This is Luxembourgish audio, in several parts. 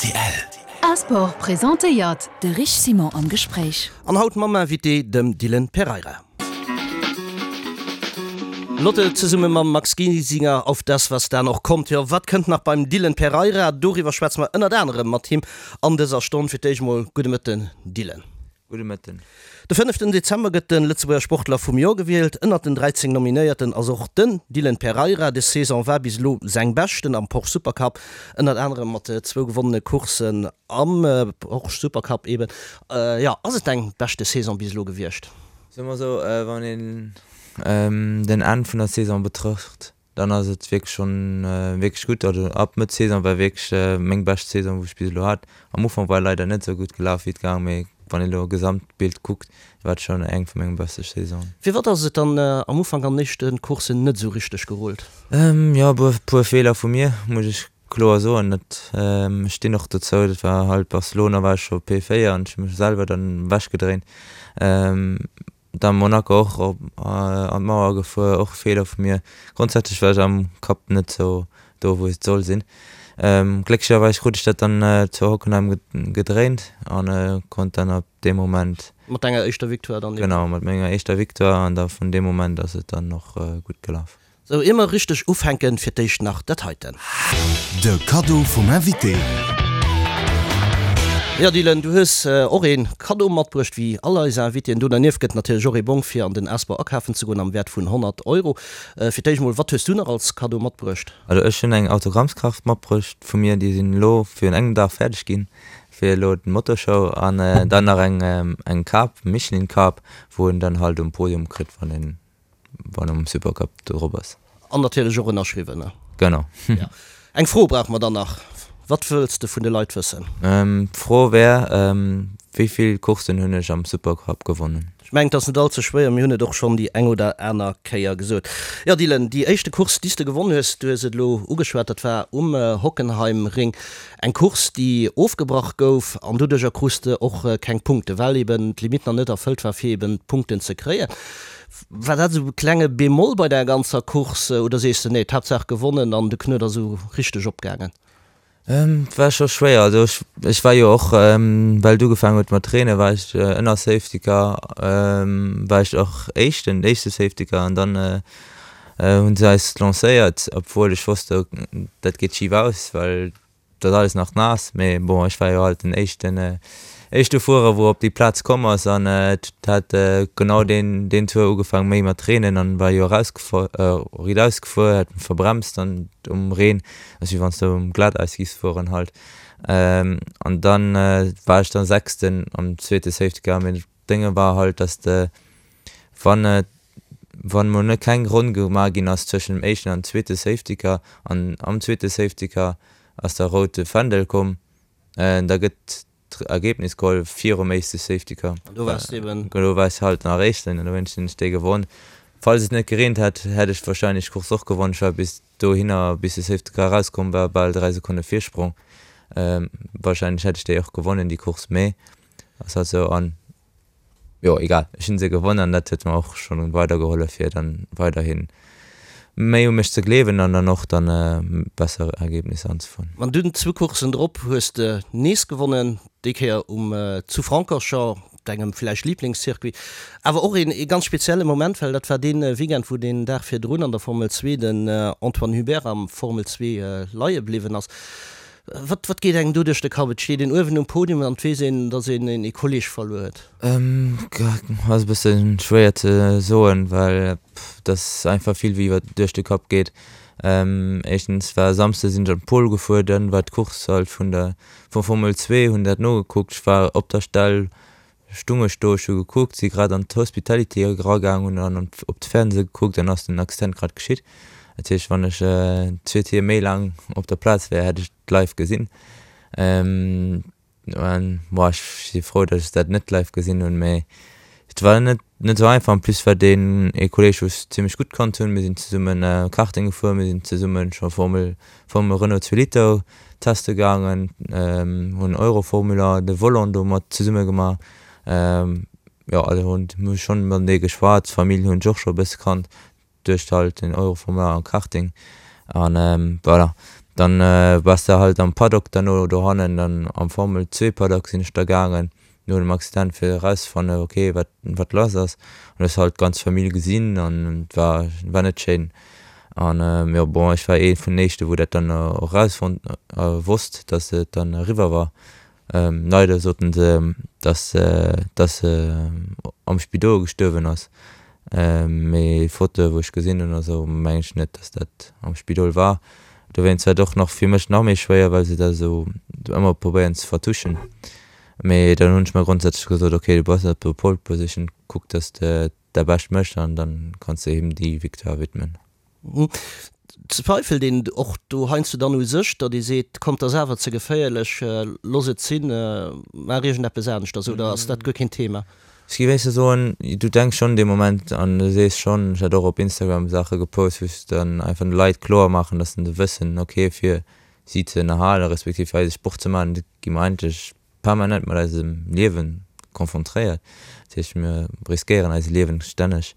Rtl. A-Sport presentéiert de Rich Simon am Gespréich. An haut mam Invité, dem Dylan Pereira. Lotte zesumme mam Max Giesinger auf das, was da noch kommt. Jo, wat kënnt nach beim Dylan Pereira? Doriwwer schwätze mer ënnert anerem mat him an dëser Stonn. Fir d'éischt mol gudde Mëtten, Dylan. Gudde Mëtten. De fënneften Dezember gëtt de Lëtzebuerger Sportler vum Joer gewielt. Ënnert den 13 Nominéierten ass och den Dylan Pereira. Des Saison war bis elo seng beschten am Porsche Supercup, ënnert anerem mat zwou gewonnene Courssen am Porsche Supercup eben. Jo, ass et deng beschte Saison bis elo gewiescht? Soe mer esou, wann een den Enn vun der Saison betrëcht, Dann ass et wierklech schonn wierklech gutt. Also ab Mëtt Saison war wierklech meng bescht Saison wou ech bis elo hat. Am Ufank war leider net esou gutt gelaf wéi et gaang, mee wann een elo Gesamtbild kuckt, war et schonn eng vu menge beste Saisonen. Firwat ass et dann am Ufank an den éischte Courssen net esou richteg gerullt? Jo e puer Feeler vu mir, muss ech kloer soen. Dat ech stinn och dozou. Dat war halt Barcelona war ech scho P4 an ech hu mech selwer dann ewech gedréint. Da Monaco och op an d'Mauer gefuer, och e Feeler vu mir. Grondsätzlech war ech am Kapp net sou do wou et soll sinn. Glécklecherweis krut ech dat dann zu Hockenheim gedréint an konnt dann ab deem Moment. Mat denger éischter Victoire dann eben. Genau, mat menger éischter Victoire an da vun deem Moment ass et dann och gutt gelaf. Sou, ier mer richteg ufänken, fir d'éischt nach dat heiten. De Kaddo vum Invité. Jo Dylan, du hues och ee Kaddo matbruecht, wéi all eis Invitéen. Do dernieft gëtt natierlech och ee Bong fir an den Asbor akafen ze goen am Wäert vun 100 Euro. Fir d'éischt mol, wat hues du nach als Kaddo matbruecht? Also ech hunn eng Autogrammskaart matbruecht vu mir, déi sinn elo virun engem Dag fäerdeg ginn fir elo d'Motorshow an dann nach eng eng Kap, Michelin Kap, wou een dann halt um Podium kritt wann een wann um Supercup drop ass. An natierlech och ënnerschriwwen, ne? Genau. Ja. Eng Fro brauche mer dann nach. Wat wëlls de vun de Leit wëssen? D'Fro wär, Wéi vill Courssen hunn ech am Supercup gewonnen? Ech mengen, et ass net all ze schwéier, mir hunn et och schonn déi eng oder aner Kéier gesot. Jo, Dylan, déi éischte Course, déi s de gewonnen hues, du hues et elo ugeschwat, dat war um Hockenheimring. Eng Course, déi ofgebrach gouf an doduercher krus de och keng Punkten, well eben d'Limite nach net erfëllt war, fir eben d'Punkten ze kréien. War dat esou e klenge Bémol bei der ganzer Course oder sees de nee, d'Haaptsaach gewonnen an de Knuet ass esou richteg opgaangen? Et war scho schwéier, also ech ech war jo och well et ugefaangen huet mat reene war ech ënner Safety Car war ech och éischten, éischte Safety Car an dann hunn se eis lancéiert obwuel ech wosst dat geet schif aus well Et ass alles nach naass, mee bon, ech war jo halt den éischten, éischte Fuerer, wou op déi Plaz komm ass an et hat genau deen, deen Tour ugefaang méi mat reenen an war jo erausgefuer, riit ausgefuer, hat verbremst an um Reen, ass wéi wann s de um Glateis giffs fueren halt. An dann war ech dann Sechsten am zweete Safety Car, mee d'Dénge war halt, dass de wann et wann mol net keng Ronn gemaach ginn ass zwëschen dem éischten an zweete Safety Car an am zweete Safety Car ass da route Fändel komm, da gëtt d'Ergebnis geholl virum éischte Safety Car. An do waars de eben. Do war ech halt nach éischten an dowéinst hunn ech dee gewonn. Falls et net gereent hätt, hätt ech wahrscheinlech d'Course och gewonn. Ech war bis dohinner, bis de Safety Car erauskomm war, bal 3 Sekonne Virsprong. Wahrscheinlech hätt ech déi och gewonnen, déi Course, mee ass halt sou an Jo egal, ech hunn se gewonn an dat huet mer och schonn weidergehollef fir dann weiderhin méi u mech ze gleewen an dann och dann besser Ergebnisser anzefueren. An dunn zwou Courssen drop hues de nees gewonnen, déi Kéier um zu Francorchamps, dengem villäicht Liblingscircuit. Awer och een ee ganz spezielle Moment, well dat war dee Weekend wou deen Dag virdrun an der Formel 2 den Antoine Hubert am Formel 2 leie bliwwen ass. Wat, wat geet engem do duerch de Kapp? Et steet een uewen um Podium an et weess een, datt een ee Kolleeg verluer huet. Ass e bësse schwéier ze soen, well et ass einfach vill wéi wat duerch de Kapp geet. Éischtens war Samsde sinn ech an d'Pole gefuer, dann war d'Course halt vun der vum Formel 2, hunn dat nogekuckt. Ech war op der Stell Stung ech do, ech hu gekuckt, si grad an d'Hospitality eragaang, hunn dann op de Fernseh gekuckt an ass den Accident grad geschitt. Dat heescht, wann ech zwee Tier méi laang op der Plaz wär, hätt ech et live gesinn. An bon, ech si frou, datt ech dat net live gesinn hunn, mee et war net net esou einfach. En plus war deen ee Kolleeg, wou ech zimmlech gutt kannt hunn, mir sinn zesummen Karting gefuer, mir sinn zesummen scho Formel Formel Renault 2 Liter Teste gaangen, hunn Euroformula, de Volant do mat zesumme gemaach. Jo, also hunn hu schonn matenee geschwat. D'Famill hunn ech och scho e bësse kannt duerch halt den Euroformula an Karting. An voilà, Dann bass de halt am Paddock derno dohannen, dann am Formel 2 Paddock sinn ech da gaangen no dem Accident fir erauszefannen ok wat wat lass ass. An hues halt d'ganz Famill gesinn an et war war net schéin. An jo bon ech war ee vun den éischte wou dat dann och erausfonnt wosst dass et dann eriwwer war. Leider soten se, dass dass se am Spidol gestuerwen ass, mee Fotoe wou ech gesinn hunn a sou mengen ech net, dass dat am Spidol war. Dowéinst war et och nach fir mech nach méi schwéier, well se dat esou ëmmer probéieren ze vertuschen. Mee dann hunn ech mer grondsätzlech gesot, ok du bass op der Pole Position, kuck dass de däi Bescht méchs an dann kanns de him déi Victoire widmen. Zweifelt een och do heiansdo dann u sech, datt ee seet, kommt, ass awer ze geféierlech, looss et sinn, maach iergendeppes aneschters, oder ass dat guer keen Thema? Ech géif éischter soen, du denks schonn dee Moment an du sees schonn, ech hat och op Instagram Saache gepost, wou ech dann einfach de Leit kloer maachen, datt se wëssen, ok, fir si ze ënnerhalen, respektiv fir eise Sport ze maachen, gi mer eigentlech permanent mat eisem Liewen konfrontéiert. Dat heescht, mir riskéieren eise Liewen stänneg.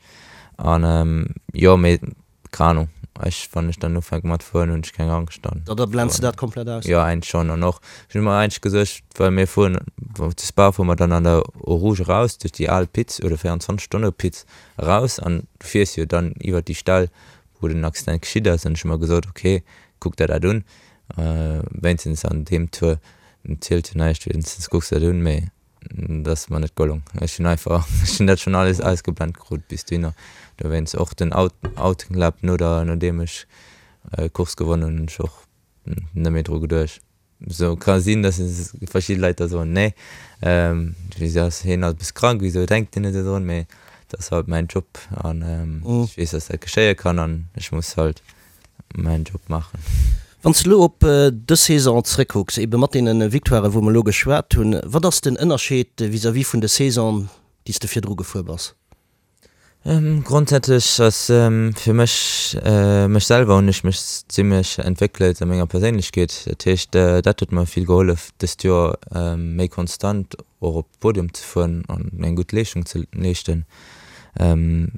An jo, mee keng Ahnung, ech, wann ech dann ufänke mat fueren, hunn ech keng Angscht dann. Da blends de dat komplett aus? Jo, eigentlech schonn. An och, ech hunn mer eigentlech gesuergt, well mir fueren, zu Spa fuere mer dann an der Eau Rouge eraus, duerch déi al Pits oder 24 Stonne Pits eraus an du fiers jo dann iwwert déi Stell, wou den Accident geschitt ass. An ech hu mer gesot, ok, kuck der dat un, wéinstens an deem Tour. Et zielt jo näischt, wéinstens kucks de dat un, mee dat ass mer net gelong. Ech hunn einfach, ech hunn dat schonn alles ausgeblent krut bis dohinner. Dowéinst och den Out, Outlap no der, nodeem ech d'Course gewonnen hunn, hunn ech och net méi dru geduecht. Sou ka sinn, datt verschidde Leit da soen, nee, wisou ass hien alt e bësse krank, wisou denkt hien net esou drun, mee dat ass halt mäin Job an ech weess, datt dat geschéie kann an ech muss halt mäin Job maachen. Wann s de elo op dës Saison zréckkucks, ebe mat deene Victoiren, wou mer elo geschwat hunn, wat ass den Ënnerscheed vis-à-vis vun de Saison, déi s de virdru gefuer bass? Grondsätzlech ass fir mech, mech selwer hunn ech mech zimmlech entwéckelt a menger Perséinlechkeet. Dat heescht, dat huet mer vill gehollef dëst Joer méi konstant och op Podium ze fueren an eng gutt Leeschtung ze leeschten.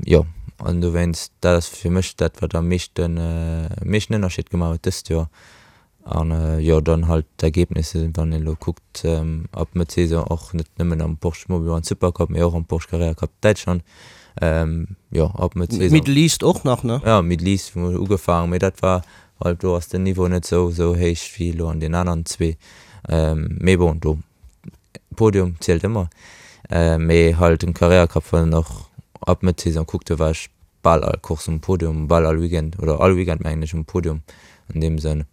Jo, an dowéinst, dat ass fir mech dat, wat am meeschten, meeschten Ënnerscheed gemaach huet dëst Joer. An jo, dann halt d'Ergebnisse, wann een elo kuckt, ab Mëtt Saison och net nëmmen am Porsche Mobil One Supercup, mee och am Porsche Carrera Cup Däitschland. Jo, ab Mëtt Saison. Middle East och nach, ne? Jo, Middle East hu mer ugefaangen, mee dat war halt, do ass den Niveau net esou, esou héich wéi elo an den aneren zwee. Mee bon, do Podium zielt ëmmer, mee halt den Carrera Cup wann en och ab Mëtt Saison kuckt, do war ech bal all Course um Podium, bal all Weekend oder all Weekend mengen ech um Podium an deem Sënn,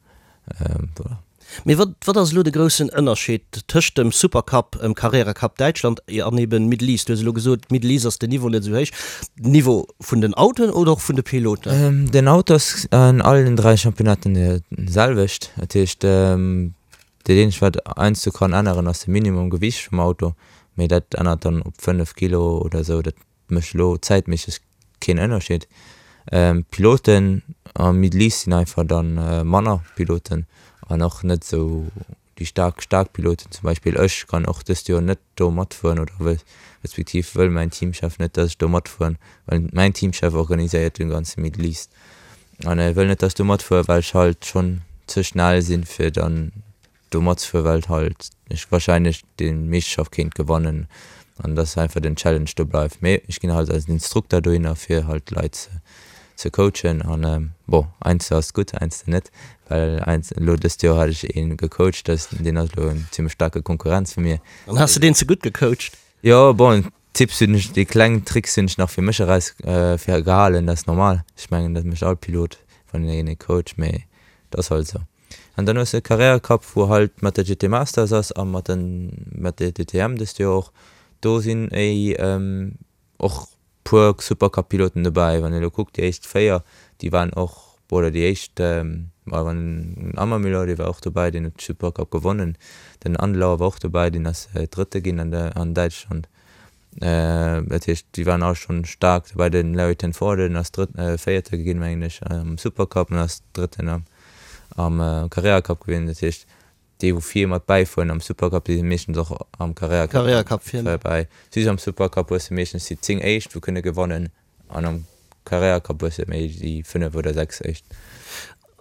voilà. Mee wat wat ass elo de groussen Ënnerscheed tëscht dem Supercup, em Carrera Cup Däitschland an eben Middle East? Du hues elo gesot, Middle East ass den Niveau net esou héich. Den Niveau vun den Autoen oder och vun de Piloten? Den Auto ass an allen 3 Championnaten de selwecht, dat heescht Dat eenzegt wat heiansdo kann änneren ass de Minimum Gewiicht vum Auto, mee dat ännert dann op 5 Kilo oder sou, dat mécht elo zäitméisseg keen Ënnerscheed. D'Piloten am Middle East sinn einfach dann manner Piloten an och net sou déi staark staark Piloten. Zum Beispill ech kann och dëst Joer net do matfueren oder wëll respektiv wëll mäin Teamchef net dass ech do matfueren, well mäin Teamchef organiséiert den ganze Middle East. An e wëll net dass ech do matfuer well ech halt schonn ze schnell sinn fir dann do matzefuer well halt ech wahrscheinlech déi Meeschterschaft kéint gewannen an dass einfach den Challenge do bleift. Mee ech ginn halt als Instrukter dohinner fir halt d'Leit ze ze coachen an bon heiansdo ass et gutt heiansdo net well heiansdo elo dëst Joer hat ech ee gecoacht dass deen ass elo en zimmlech staarke Konkurrenz vu mir. Dann has de deen ze gutt gecoacht? Jo bon Tipps hunn ech, déi kleng Tricks hunn ech nach fir mech eraus fir gehalen, dat ass normal. Ech mengen dat mécht all Pilot wann een ee coacht, mee dat ass halt esou. An dann hues de Carrera Cup wou halt mat der GT Masters ass a mat den mat der DTM dëst Joer och. Do sinn éi och puer Supercup Piloten dobäi. Wann ee lo kuckt déi éischt 4 déi waren och oder déi éischt ma wann den Ammermüller dee war och dobäi, deen huet de Supercup gewonnen, den Andlauer war och dobäi, deen ass Drëtte ginn an der an Däitschland. Dat heescht déi waren all schonn staark dobäi. Den Larry ten Voorde deen ass Drëtt Véierte ginn mengen ech am Supercup an ass Drëtten am am Carrera Cup gewien. Dat heescht déi wou vir mat bäifueren am Supercup déi si meeschtens och am Carrera Cup Carrera Cup vir. Bäi. Just am Supercup hues de meeschtens déi 10 éischt wou kënne gewannen. An am Carrera Cup hues de méi déi 5 oder 6 éischt.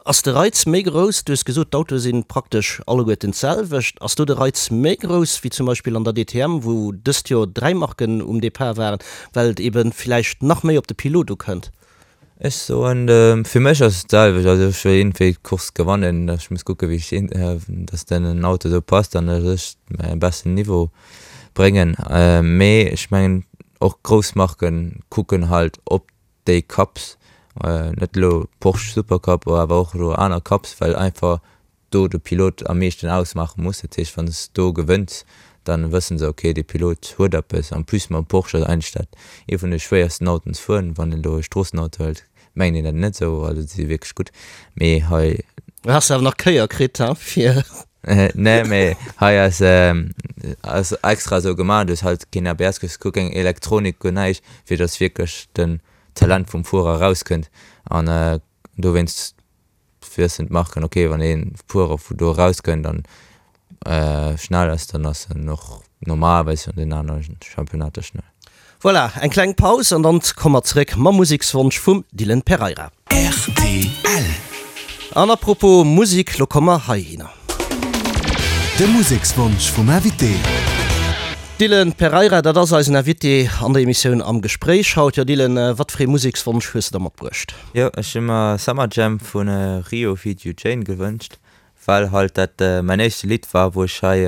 Ass de Reiz méi grouss, du hues gesot, d'Autoe si praktesch alleguerten d'selwecht, ass do de Reiz méi grouss wéi zum Beispill an der DTM, wou dëst Joer 3 Marken um Depart waren, well et ebe villäicht nach méi op de Pilot ukënnt? Ech soen, fir mech ass et d'selwecht. Also ech wëll iergendwéi d'Course gewannen, ech muss kucke wéi ech, datt den Auto esou passt an datt ech mäi beschten Niveau bréngen. Mee ech mengen och grouss Marke kucken halt op déi Cups, net elo Porsche Supercup, awer och elo aner Cups, well einfach do de Pilot am meeschten ausmaache muss. Dat heescht, wann s do gewënns, da wësse se, ok, dee Pilot huet eppes. En plus mam Porsche ass eigentlech dat ee vun de schwéiersten Autoen ze fueren. Wann een elo e Stroossenauto hëlt, mengt een dat net esou, also déi si wierklech gutt, mee hei. Do has de awer nach Kéier kritt, he, fir. Nee, mee hei ass ass extra esou gemaach, du hues halt keen ABS, du hues guer keng Elektronik, guer näischt, fir dass wierklech den Talent vum Fuerer erauskënnt an dowéinst wëssen d'Marken, ok, wann ee Fuerer vu do erauskënnt an schnell ass, dann ass en och normalerweis an den anere Championnater schnell. Voilà, eng kleng Paus an dann komme mer zeréck mam Musekswonsch vum Dylan Pereira. Rtl. An à propos Musek, lo komme mer heihinner. De Musekswonsch vum Invité. Dylan Pereira, dat ass eisen Invité an der Emissioun Am Gespréich haut. Jo Dylan, wat fir ee Musekswonsch hues de da matbruecht? Jo, ech hu mer Summer Jam vu Rio feat. Jane gewënscht. Well halt dat mäin éischte Lidd war, wou ech hei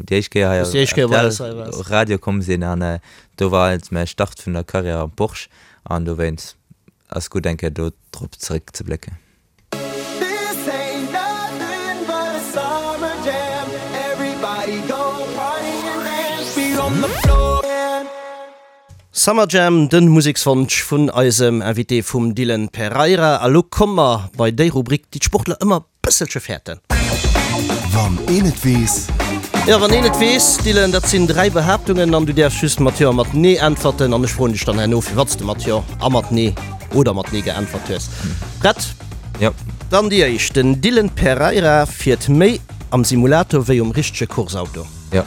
déi éischt Kéier hei op rtl Radio komm sinn an do war halt mäi Start vun der Karriär am Porsche an dowéinst ass gutt eng Kéier do drop zeréck ze blécken. Summer Jam, den Musekswonsch vun eisem Invité vum Dylan Pereira. A lo komme mer bei déi Rubrik, déi d'Sportler ëmmer bësselche fäerten. Wann een et weess. Jo, wann een et weess, Dylan, dat sinn 3 Behaaptungen an du däerfs just mat Jo a mat Nee äntwerten an ech froen dech dann herno, firwat s de mat Jo a mat Nee oder mat Nee geäntwert hues. Prett? Jo. Dann déi éischt, Den Dylan Pereira fiert méi am Simulator wéi um richtege Courseauto. Jo.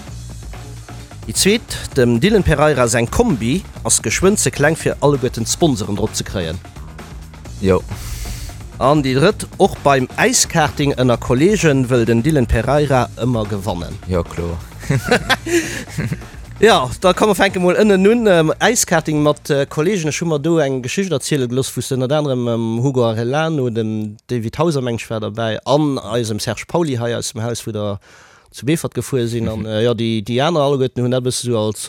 Déi zweet, dem Dylan Pereira seng Kombi ass geschwënn ze kleng fir alleguerten d'Sponsoren drop ze kréien. Jo. An déi drëtt, och beim Äiskarting ënner Kollegen wëll den Dylan Pereira ëmmer gewannen. Jo, kloer. Jo, da komm mer fänke mol ënnen un. Äiskarting mat Kollegen, ech hu mer do eng Geschicht erziele gelooss, wou s de ënnert anerem mam Hugo Arellano, dem David Hauser meng ech war derbäi an eisem Serge Pauly hei aus dem Haus, wou der zu Beefort gefuer sinn an jo déi déi aner alleguerten hunn dat e bësse sou als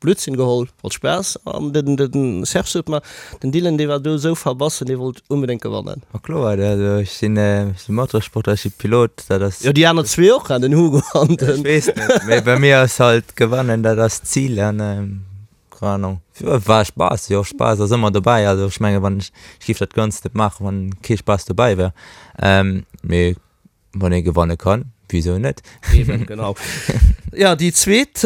Blödsinn geholl, als Spaass an den den Serge sot mer, den Dylan dee war do sou verbassen, dee wollt onbedéngt gewannen. Ma kloer, also ech sinn ech si Motorsportler, ech si Pilot, dat ass. Jo déi aner zwee och, den Hugo an den. Ech weess net, mee bei mir ass halt gewannen, dat ass d'Zil an keng Ahnung, war Spaass, jo Spaass ass ëmmer dobäi, also ech menge wann ech ech géif dat Ganzt net maachen, wann kee Spaass dobäi wär, mee Wann ee gewanne kann, wisou net? Eben, genau. Ja, déi zweet,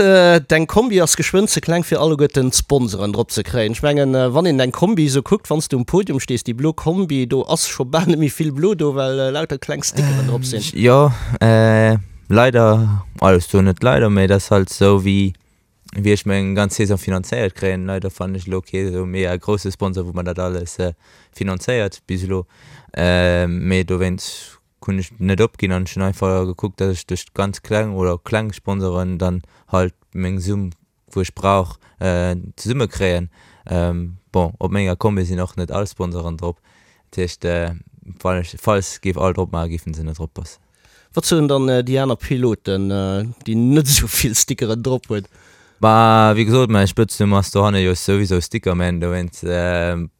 Deng Kombi ass geschwënn ze kleng fir alleguerten d'Sponsoren drop ze kréien. Ech mengen, wann een deng Kombi esou kuckt, wann s du um Podium stees, déi blo Kombi, do ass scho bal net méi vill blo do, well lauter kleng Stickeren drop sinn. Jo, leider, also ech soen net leider, mee et ass halt esou wéi wéi ech meng ganz Saison finanzéiert kréien. Leider fannen ech elo kee esou mega grousse Sponsor, wou mer dat alles finanzéiert bis elo, mee dowéinst hunn ech net opginn an ech hunn einfach gekuckt, dass ech duerch ganz kleng oder kleng Sponsoren dann halt meng Summ, wou ech brauch, zesumme kréien. Bon, op menger Kombi sinn och net all Sponsoren drop, dat heescht, wann ech, falls géif all drop maachen, géifen se net drop passen. Wat soen dann déi aner Piloten, déi net esou vill Stickeren drop hunn? Bah, wéi gesot, mäi Spëtznumm ass dohanne jo souwisou Stickerman, dowéinst,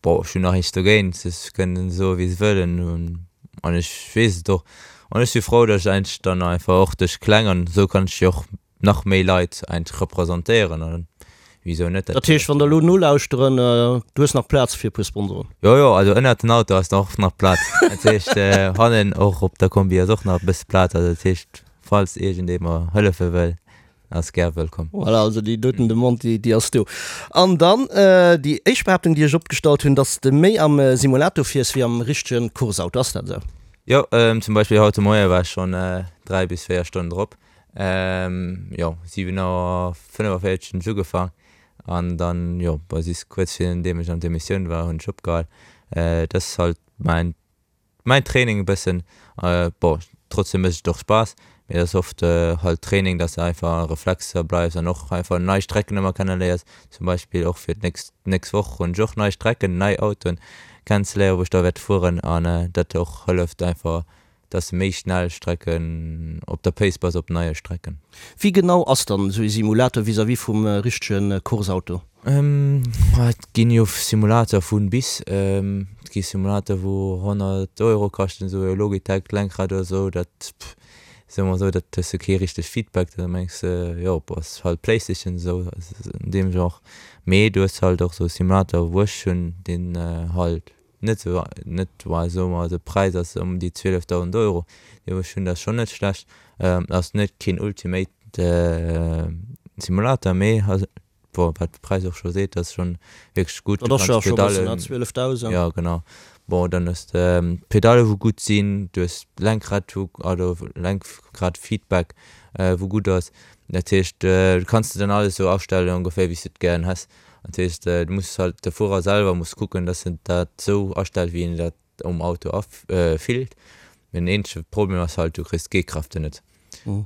bon, ech hunn nach näischt dogéint, se kënnen soe wéi se wëllen an ech weess et och. An ech si frou, datt ech eigentlech dann einfach och duerch kleng an esou kann ech jo och nach méi Leit eigentlech representéieren an wisou net. Dat heescht, wann der elo nolauschteren, du hues nach Plaz fir e puer Sponsoren? Jo, jo, also ënnert den Auto ass nach och nach Plaz, dat heescht hannen och op der Kombi ass och nach e bësse Plaz, also dat heescht, falls iergendee mer hëllefe wëll, Ass gär wëllkomm. Voilà, also déi doten Demande, déi, déi ass do. An dann déi éischt Behaaptung, déi ech opgestallt hunn, dass de méi am Simulator fiers wéi am richtege Courseauto. Ass dat esou? Jo, zum Beispill haut de Moie war ech schonn 3 bis 4 Stonnen drop. Jo, 7 Auer 45 hunn ech ugefaang an dann, jo, bis kuerz virun deem ech an d'Emissioun war, hunn ech opgehal. Dat ass halt mäin. Mäin Training e bëssen, bon trotzdem mécht et och Spaass, mee et ass oft halt Training, dass de einfach a Reflexer bleifs an och einfach nei Strecken ëmmer kenneléiers. Zum Beispill och fir d'nächst nächst Woch hunn ech och nei Strecken, nei Autoen kennenzeléieren, wou ech da wäert fueren an dat och hëlleft einfach, dass de méi schnell Strecken op der Pace bass op neie Strecken. Wéi genau ass dann esou ee Simulator vis-à-vis vum richtege Course-Auto? Et ginn jo Simulator vun bis. Et gi Simulator wou 100 Euro kaschten, esou e Logitech Lenkrad oder esou, dat soe mer esou, dat hues de kee richtegt Feedback, da mengs de jo bon ass halt Playstation esou an deem Genre. Mee du hues halt och esou Simulator wou ech hunn, deen halt net esou net well soe mer de Präis ass ëm déi 12.000 Euro, dee wou ech hunn, dat ass schonn net schlecht. Ass net keen ultimate Simulator, mee Bon, wat de Präis och scho seet, dat ass schonn wierklech gutt. Dat ass jo scho e bëssen, ne? 12.000. Jo, genau. Bon, dann hues de d'Pedalle wou gutt sinn, du hues d'Lenkrad wou, also Lenkradfeedback wou gutt ass. Dat heescht, du kanns de dann alles esou astellen ongeféier wéi s de et gären häss. Dat heescht, du muss halt, de Fuerer selwer muss kucken, dass en dat esou astellt wéi en dat um Auto afillt. Den eenzege Problem ass halt, du kriss d'G-Kräfte net.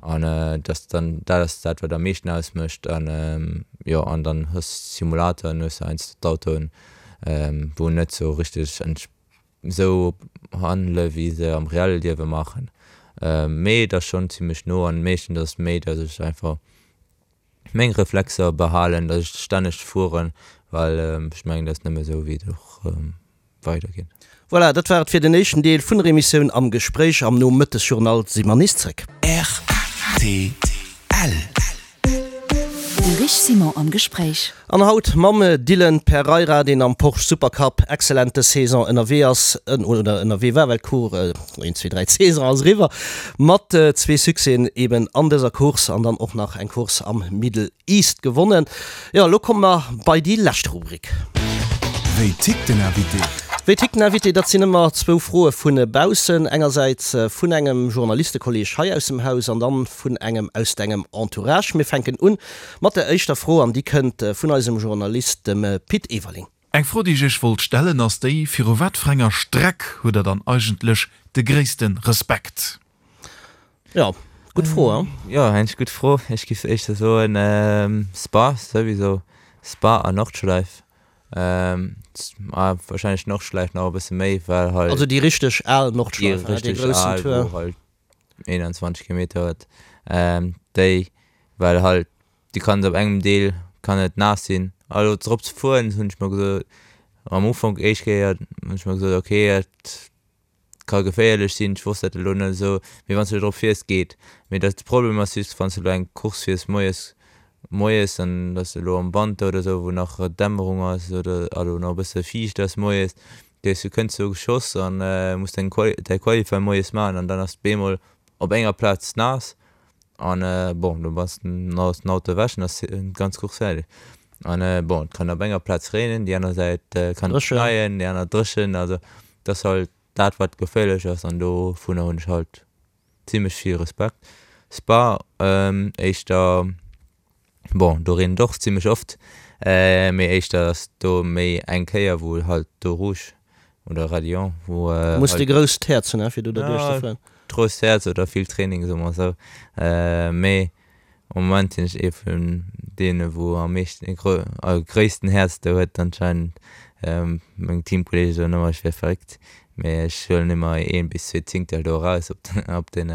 An dass dann, dat ass dat wat am meeschten ausmécht. An jo, an dann hues de Simulatoren, hues de heiansdo d'Autoen, wou net sou richteg esou handele wéi se am reelle Liewe maachen. Mee et ass schonn zimmlech no an meeschtens ass et méi, dass ech einfach meng Reflexer behalen, dass ech stänneg fueren, well ech mengen dat ass nëmme sou wéi et och weider geet. Voilà, dat war et fir den éischten Deel vun der Emissioun Am Gespréich. Am Nomëttesjournal si mer nees zréck. Rtl. De Rich Simon am Gespréich. An haut mam Dylan Pereira, deen am Porsche Supercup excellent dës Saison ënnerwee ass, oder ënnerwee war, well d'Course, een, zwee, dräi, d'Saison ass eriwwer, mat zwee Succèsen eben an dëser Course an dann och nach eng Course am Middle East gewonnen. Jo, elo komme mer bei déi lescht Rubrik. Wéi tickt den Invité? Wéi tickt den Invité? Dat sinn ëmmer zwou Froe vu baussen. Engersäits vun engem Journalistekolleeg hei aus dem Haus an dann vun engem aus dengem Entourage. Mir fänken un mat der éischter Fro an déi kënnt vun eisem Journalist, dem Pit Everling. Eng Fro déi ech iech wollt stellen ass déi, viru wat fir enger Streck hutt der dann eigentlech de gréissten Respekt? Jo, gutt Fro, hein? Jo, eng gutt Fro. Ech giff éischter soen Spa souwisou, Spa an Nordschleif. Wahrscheinlech Nordschleif nach e bësse méi, well halt. Also déi richteg al Nordschleif, hein, dee groussen Tour. Déi richteg al, wou halt 21 Kilometer huet, déi, well halt Du kanns op engem Deel kann et naass sinn. Also drop ze fueren hunn ech mer gesot am Ufank éischt Kéier hunn ech mer gesot ok et ka geféierlech sinn, ech wosst dat elo net esou, mee wann s de drop fiers geet. Mee dat de Problem ass just wann s de elo eng Course fiers moies moies an et ass elo am Wanter oder esou wou nach Dämmerung ass oder also nach e bësse fiicht ass moies, du kënns do geschoss an muss deng Quali däi Qualify moies maachen an dann ass et bemol op enger Plaz naass An bon, do bass den ass den Auto ewech an ass d'ganz Course fäerdeg. An bon, et kann op enger Plaz reenen, déi aner Säit kann et schneien, déi aner dréchen. Also et ass halt dat wat geféierlech ass an dovunner hunn ech halt zimlech vill Respekt. Spa éischter, bon do reent et och zimlech oft, mee éischter ass do méi eng Kéier wou halt do Rouge Oder Raidillon, wou. Muss de grousst Häerz hunn, fir do derduerch ze fueren. Grousst Häerz oder vill Training, soe mer esou. Mee am Moment sinn ech ee vun deene wou am meeschten, gréissten Häerz do huet anscheinend. Meng Teamkolleege soen ëmmer ech wier verréckt, mee ech huelen ëmmer een bis zwee Zingtel do eraus op den,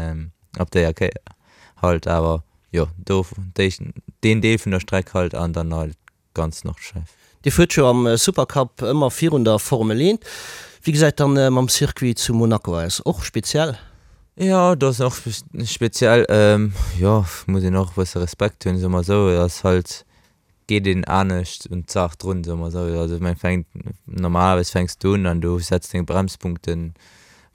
op déier Kéier halt. Awer jo, do déi, deen Deel vun der Streck halt an dann halt ganz Nordschleif. Dir fuert jo am Supercup ëmmer virun der Formel 1. Wéi gesäit dann mam Circuit zu Monaco aus? Och speziell? Jo, do ass och speziell. Jo, muss een och e bësse Respekt hunn, soe mer esou. Et ass halt, geet een anescht un d'Saach drun, soe mer esou. Also mä fänkt, normalerweis fänks du un an du setz deng Bremspunkten,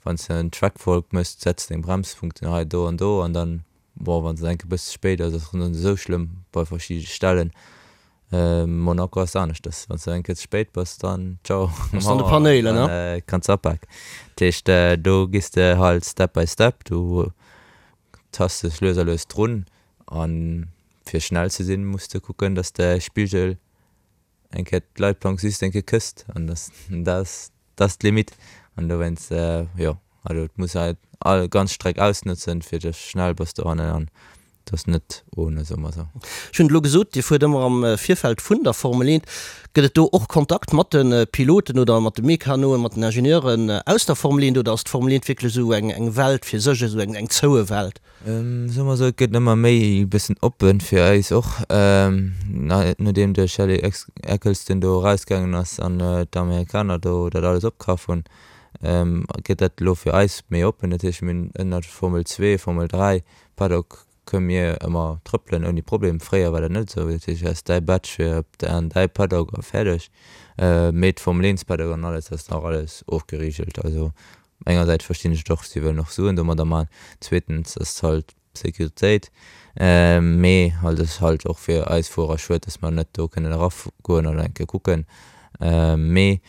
wann s de en Track Walk méchs, setz deng Bremspunkten hei, do an do an dann Bon, wann se enke bësse spéit ass, ass net esou schlëmm bei verschidde Stellen. Monaco ass aneschters, wann s de eng Kéier ze spéit bass, dann ciao, Ass an de Panéilen, ne? Kanns apaken. Dat heescht, do gees de halt step by step, du tasts dech lues a lues drun a fir schnell ze sinn, muss de kucken, dass de Spigel eng Kéier d'Leitplank just eng Kéier kësst an dat ass d'Limite an dowéinst, jo. Also et muss halt all ganz Streck ausnotzen fir dass schnell bass dohannen an dass net ohne, soe mer sou. Ech hunn et elo gesot, Dir fuert ëmmer am Virfeld vun der Formel 1. Gëtt et do och Kontakt mat de Piloten oder mat de Mekanoen, mat den Ingenieuren aus der Formel 1 oder ass d'Formel 1 wierklech esou eng Welt fir sech, esou eng zoue Welt? Soe mer esou, et gëtt ëmmer méi e bëssen oppen fir eis och, nodeem de Charlie Ecclestone do erausgaangen ass an d'Amerikaner do dat alles opkaf hunn, gëtt dat elo fir eis méi oppen. Dat heescht, mir hunn ënnert Formel 2, Formel 3 Paddock kënne mir ëmmer trëppelen ouni Problem. Fréier war dat net esou, dat heescht, du has däi Badge fir op an däi Paddock a fäerdeg. Mee d'Formel 1 Paddock an alles ass nach alles ofgerigelt. Also Engersäits verstinn ech et och, si wëllen och Suen domadder man, zweetens ass et halt Sécuritéit, mee halt ass halt och fir eis Fuerer schued, dass mer net do kënnen eragoen an eng Kéier kucken. Mee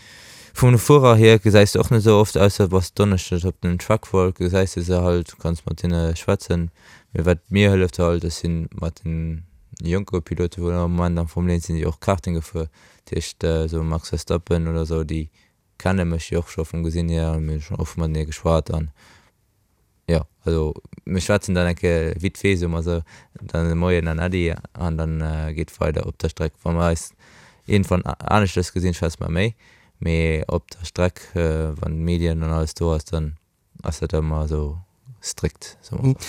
vun de Fuerer hier gesäis de och net esou oft, ausser bass Donneschdes op den Truckwalk, gesäis de se halt, kanns mat hinne schwätzen. Mee wat mir hëlleft halt, ech si mat den jonke Pilote wou am Moment am Formel 1 sinn, déi och Karting gefuer, dat heescht esou Max Verstappen oder esou, déi kenne mech jo och scho vum Gesinn hier an mir hu scho oft matenee geschwat an jo, also mir schwätzen dann eng Kéier vite fait, soe mer esou, dann e Moien an Äddi an dann geet weider op der Streck. Wa mer eis iergendwann aneschtes gesinn, schwätze mer méi, mee op der Streck, wann d'Medien an alles do ass, dann Ass dat ëmmer esou strikt, soe mer esou.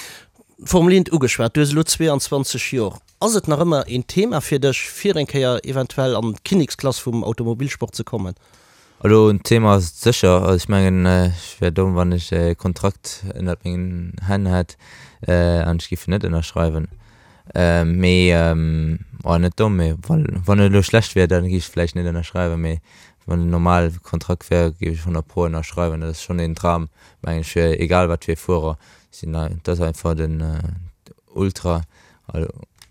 D'Formel Eent ugeschwat, du hues elo 22 Jor. Ass et nach ëmmer een Thema fir dech, fir eng Kéier eventuell an d'Kinneksklass vum Automobilsport ze kommen? Elo en Thema ass et sécher. Also ech mengen, ech wär domm, wann ech e Kontrakt ënnert mengen Hänn hätt an ech géif en net ënnerschreiwen. Mee, oh net domm, mee wann et elo schlecht wier, da géif ech vläicht net ënnerschreiwen. Mee Wann en normal Kontrakt wär, géif ech 100 pro ënnerschreiwen. Dat ass schonn een Dram, mengen ech, fir egal wat fir e Fuerer. Sinn, dat ass einfach den Ultra.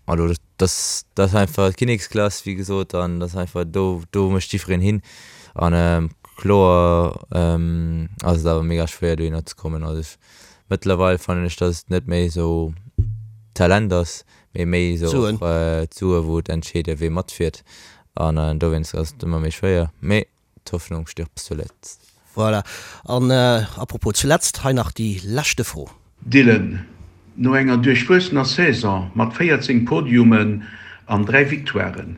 Also dat ass einfach d'Kinneksklass, wéi gesot, an dat ass einfach do, do mécht jiddwereen hin. An kloer ass et awer mega schwéier dohinner ze kommen. Also ech, mëttlerweil fannen ech, datt et net méi esou Talent ass, mee méi esou och d'Sue wou et entscheede wee matfiert. An dowéinst ass et ëmmer méi schwéier, mee d'Hoffnung stirbt zuletzt. Voilà, an à propos zuletzt, hei nach déi leschte Fro. Dylan, no enger duerchwuessener Saison mat 14 Podiumen an 3 Victoiren,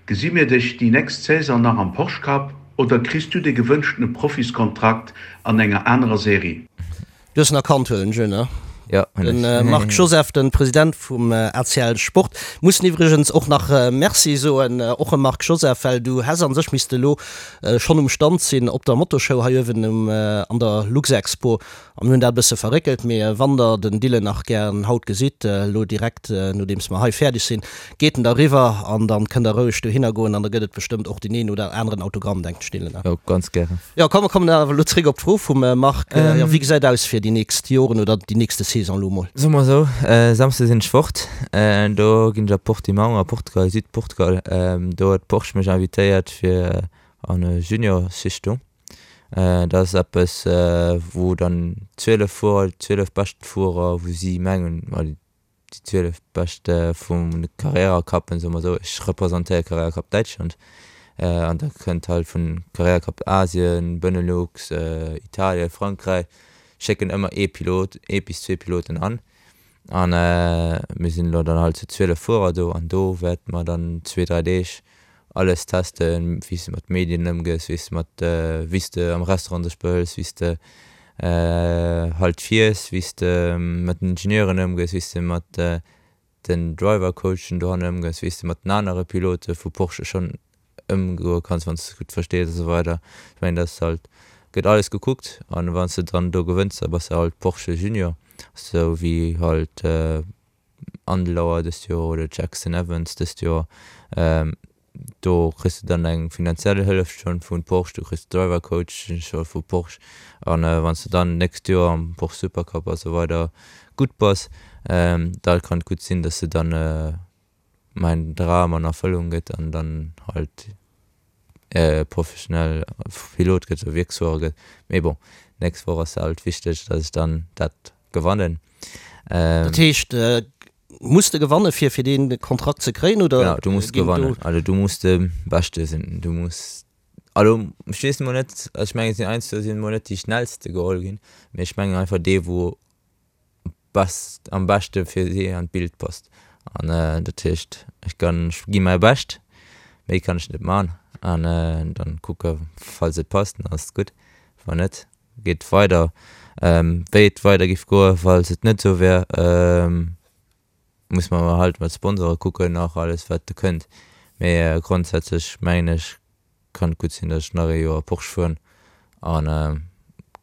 gesi mir dech déi nächst Saison nach am Porsche Cup oder kriss du de gewënschtene Profiskontrakt an enger anerer Serie? Du hues en erkannt, huelen ech un, ne? Jo, hunn ech. Den Marc Joseph, den President vum ACL Sport. Mussen iwwregens och nach Merci soen, och em Marc Joseph, well du häss an sech misste elo schonn um Stand sinn op der Motoshow hei uewen um an der Luxexpo. A mir hunn dat e bësse verréckelt, mee wann der den Dylan nach gären haut gesitt, elo direkt nodeems mer hei fäerdeg sinn, Geet en da riwwer an dann kënnt der roueg dohinner goen an da gëtt et bestëmmt och deen een oder aneren Autogramm, denken ech Dylan, ne? Jo, ganz gären. Jo, komm mer kommen awer elo zréck op d'Fro vum Marc. Jo, wéi gesäit aus fir déi nächst Joren oder déi nächste Saison elo mol? Soe mer esou, Samsde sinn ech fort, do ginn ech a Portimão a Portugal, Südportugal. Do huet Porsche mech invitéiert fir an e Junior-Schichtung. Dat ass eppes wou dann 12 Fuerer, déi 12 beschten Fuerer, wou si mengen, déi 12 bescht vum Carrera Cup, soe mer esou, ech representéiere Carrera Cup Däitschland an da kënnt halt vun Carrera Cup Asien, Benelux, Italien, Frankräich schécken ëmmer ee Pilot, ee bis zwee Piloten an an mir sinn elo dann halt zu 12 Fuerer do an do wäerte mer dann zwee, dräi Deeg alles testen, wéi s de mat Medien ëmgees, wéi s de mat, wéi s de am Restaurant dech behëls, wéi s de halt fiers, wéi s de mat den Ingenieuren ëmgees, wéi s de mat den Driver-Coachen dohanne ëmgees, wéi s de mat den anere Pilote vu Porsche schonn ëmgoe kanns, wann s de se gutt verstees a sou weider. Ech mengen, dat ass halt, gëtt alles gekuckt an wann s de dann do gewënns, da bass de halt Porsche Junior, sou wéi halt Andlauer dëst Joer oder Jackson Evans dëst Joer. Do kriss de dann eng finanziell Hëllef schonn vu Porsche, du kriss Driver Coach scho vu Porsche an wann s de dann d'nächst Joer am Porsche Supercup a sou weider gutt bass, da kann et gutt sinn, dass de dann mäin Dram an Erfëllung gëtt an dann halt professionell Pilot gëtt oder Wierksfuerer gëtt. Mee bon, d'nächst Woch ass halt wichteg, dass ech dann dat gewannen. Dat heescht, muss de gewanne fir fir dee Kontrakt ze kréien oder? Genau, du muss gewannen. Also du muss de Beschte sinn. Du muss. Elo, ech weess emol net, also ech mengen et sinn heiansdo sinn emol net déi schnellste geholl ginn, mee ech mengen einfach dee wou best am beschte fir si an d'Bild passt. An dat heescht ech kann ech gi mäi Bescht, méi kann ech net man an dann kucke falls et passt, dann ass et gutt, wann net geet et weider. Wéi et weider giff goe falls et net esou wär, muss mer halt mat Sponsore kucken nach alles wat do kënnt, mee grondsätzlech mengen ech kann et gutt sinn datt ech nach ee Joer Porsche fueren an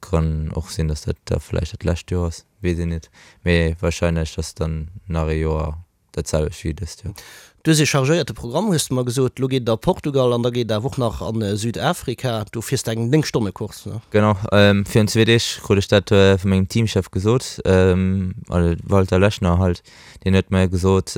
kann och sinn datt dat da vläicht dat lescht Joer ass, weess een net, mee wahrscheinlech ass dann nach ee Joer dat selwecht wéi dëst Joer. Du hues ee chargéierte Programm hues de mer gesot, lo geet et a Portugal an da geet et awer och nach a Südafrika, do fiers de eng 9 Stonne Course ne? Genau, virun zwee Deeg krut ech dat vu mengem Teamchef gesot, also Walter Lechner halt, deen huet mer gesot,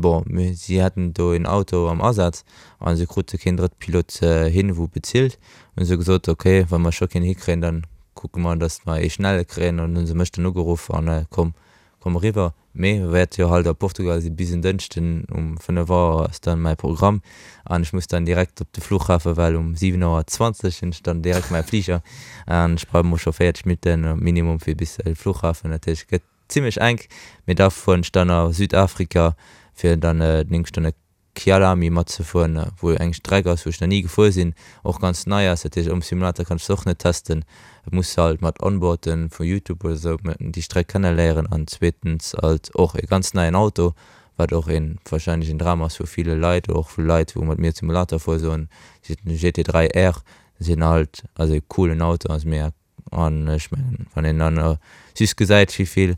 bon si hätten do een Auto am Asaz a se krute keen drëtte Pilot hin wou bezilt, hunn se gesot, ok wa mer scho keen hikréien, dann kucke mer datt mer ee schnelle kréien an hunn se mech dann ugeruff an komm komm eriwwer. Mee wäert jo halt a Portugal si bis en Dënschden um 5 Auer ass dann mäi Programm an ech muss dann direkt op de Flughafen, well um 7 Auer 20 hunn ech dann direkt mäi Fliger an ech brauch mol scho 40 Minutten minimum fir bis de Flughafen. Dat heescht et gëtt zimmlech enk, mee da fueren ech dann a Südafrika fir dann 9 Stonne Kyalami matzefueren, wou eng Streck ass, wou ech nach ni gefuer sinn, och ganz nei ass. Dat heescht, um Simulator kann ech se och net testen. Et muss halt mat Onboarden vu Youtube oder sou déi Streck kenneléieren an zweetens halt och e ganz neien Auto, wat och een wahrscheinlech een Dram ass vu ville Leit oder och vu Leit wou mat mir Simulator fuere soen, GT3 R sinn halt ass e coolen Auto, ass mega An ech mengen, wann een dann just gesäit, wéi vill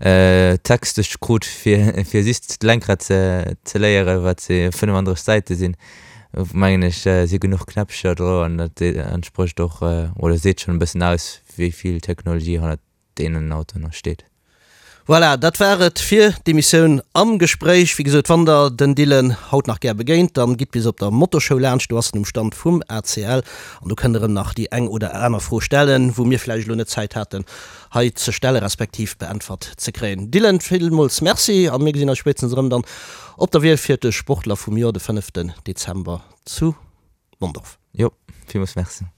Text ech krut, fir fir just d'Lenkrad ze ze léieren, wat se 35 Säite sinn, mengen ech, si genuch Knäppcher dro an dat entsprécht och oder seet schonn e bëssen aus, wéi vill Technologie hannert deenen Autoen nach steet. Voilà, dat war et fir d'Emissioun Am Gespréich. Wéi gesot, wann der den Dylan haut nach gär begéint, dann gitt bis op der Motoshow laanscht, do ass en um Stand vum ACL an do kënnt der em nach déi eng oder aner Fro stellen, wou mir vläicht elo net Zäit haten hei ze stelle respektiv beäntwert ze kréien. Dylan, villmools Merci a mir gesinn eis spéitstens erëm dann op der Wiel fir de Sportler vum Joer de fënneften Dezember zu Mondorf. Jo, villmools Merci.